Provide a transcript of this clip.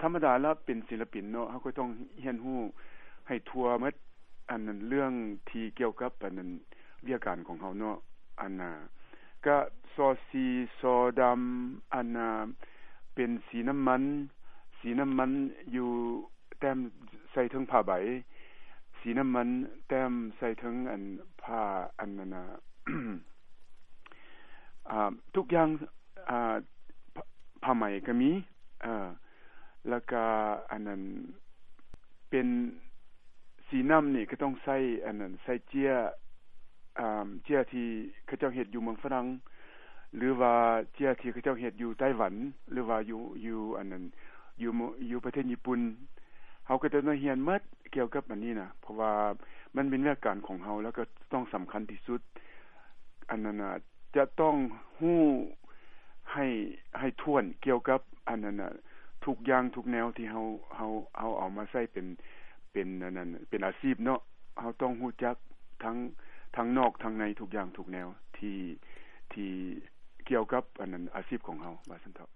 ທຳມະດາລະເປັນສິລະປິນເນາະ ເຮົາກໍຕ້ອງຮຽນຮູ້ໃຫ້ທົ່ວໝົດ ອັນນັ້ນເລື່ອງທີ່ກ່ຽວກັບອັນນັ້ນວຽກການຂອງເຮົາເນາະ ອັນນ່າກະຊໍສີ ສໍດຳ ອັນນ່າເປັນສີນ້ຳມັນ ສີນ້ຳມັນຢູ່ແຕ້ມໃສ່ເທິງຜ້າໃບ ສີນ້ຳມັນແຕ້ມໃສ່ເທິງອັນຜ້າອັນນັ້ນນ່າ ອ່າ ທຸກຢ່າງ ອ່າ ຜ້າ ຜ້າໄໝກໍມີ ເອີ ແລ້ວກະອັນນັ້ນເປັນສີນ້ຳນີ້ກໍຕ້ອງໃສ່ອັນນັ້ນ ໃສ່ເຈ້ຍ ອ່າ ເຈ້ຍທີ່ເຂົາເຈົ້າເຮັດຢູ່ເມືອງຝຣັ່ງ ຫຼືວ່າເຈ້ຍທີ່ເຂົາເຈົ້າເຮັດຢູ່ໄຕ້ຫວັນ ຫຼືວ່າຢູ່ ຢູ່ອັນນັ້ນ ຢູ່ ຢູ່ປະເທດຍີ່ປຸ່ນ ເຮົາກໍຈະໄດ້ຮຽນໝົດກ່ຽວກັບອັນນີ້ນະ ເພາະວ່າມັນເປັນວຽກການຂອງເຮົາ ແລ້ວກໍຕ້ອງສຳຄັນທີ່ສຸດ ອັນນັ້ນນະ ຈະຕ້ອງຮູ້ໃຫ້ ໃຫ້ຖ້ວນກ່ຽວກັບອັນນັ້ນນະ ທຸກຢ່າງທຸກແນວທີ່ເຮົາ ເຮົາ ເຮົາເອົາມາໃຊ້ເປັນ ເປັນອັນນັ້ນ ເປັນອາຊີບເນາະ ເຮົາຕ້ອງຮູ້ຈັກທັງ ທັງນອກທັງໃນ ທຸກຢ່າງທຸກແນວທີ່ ທີ່ກ່ຽວກັບອັນນັ້ນ ອາຊີບຂອງເຮົາ ວ່າຊັ້ນເຖາະ.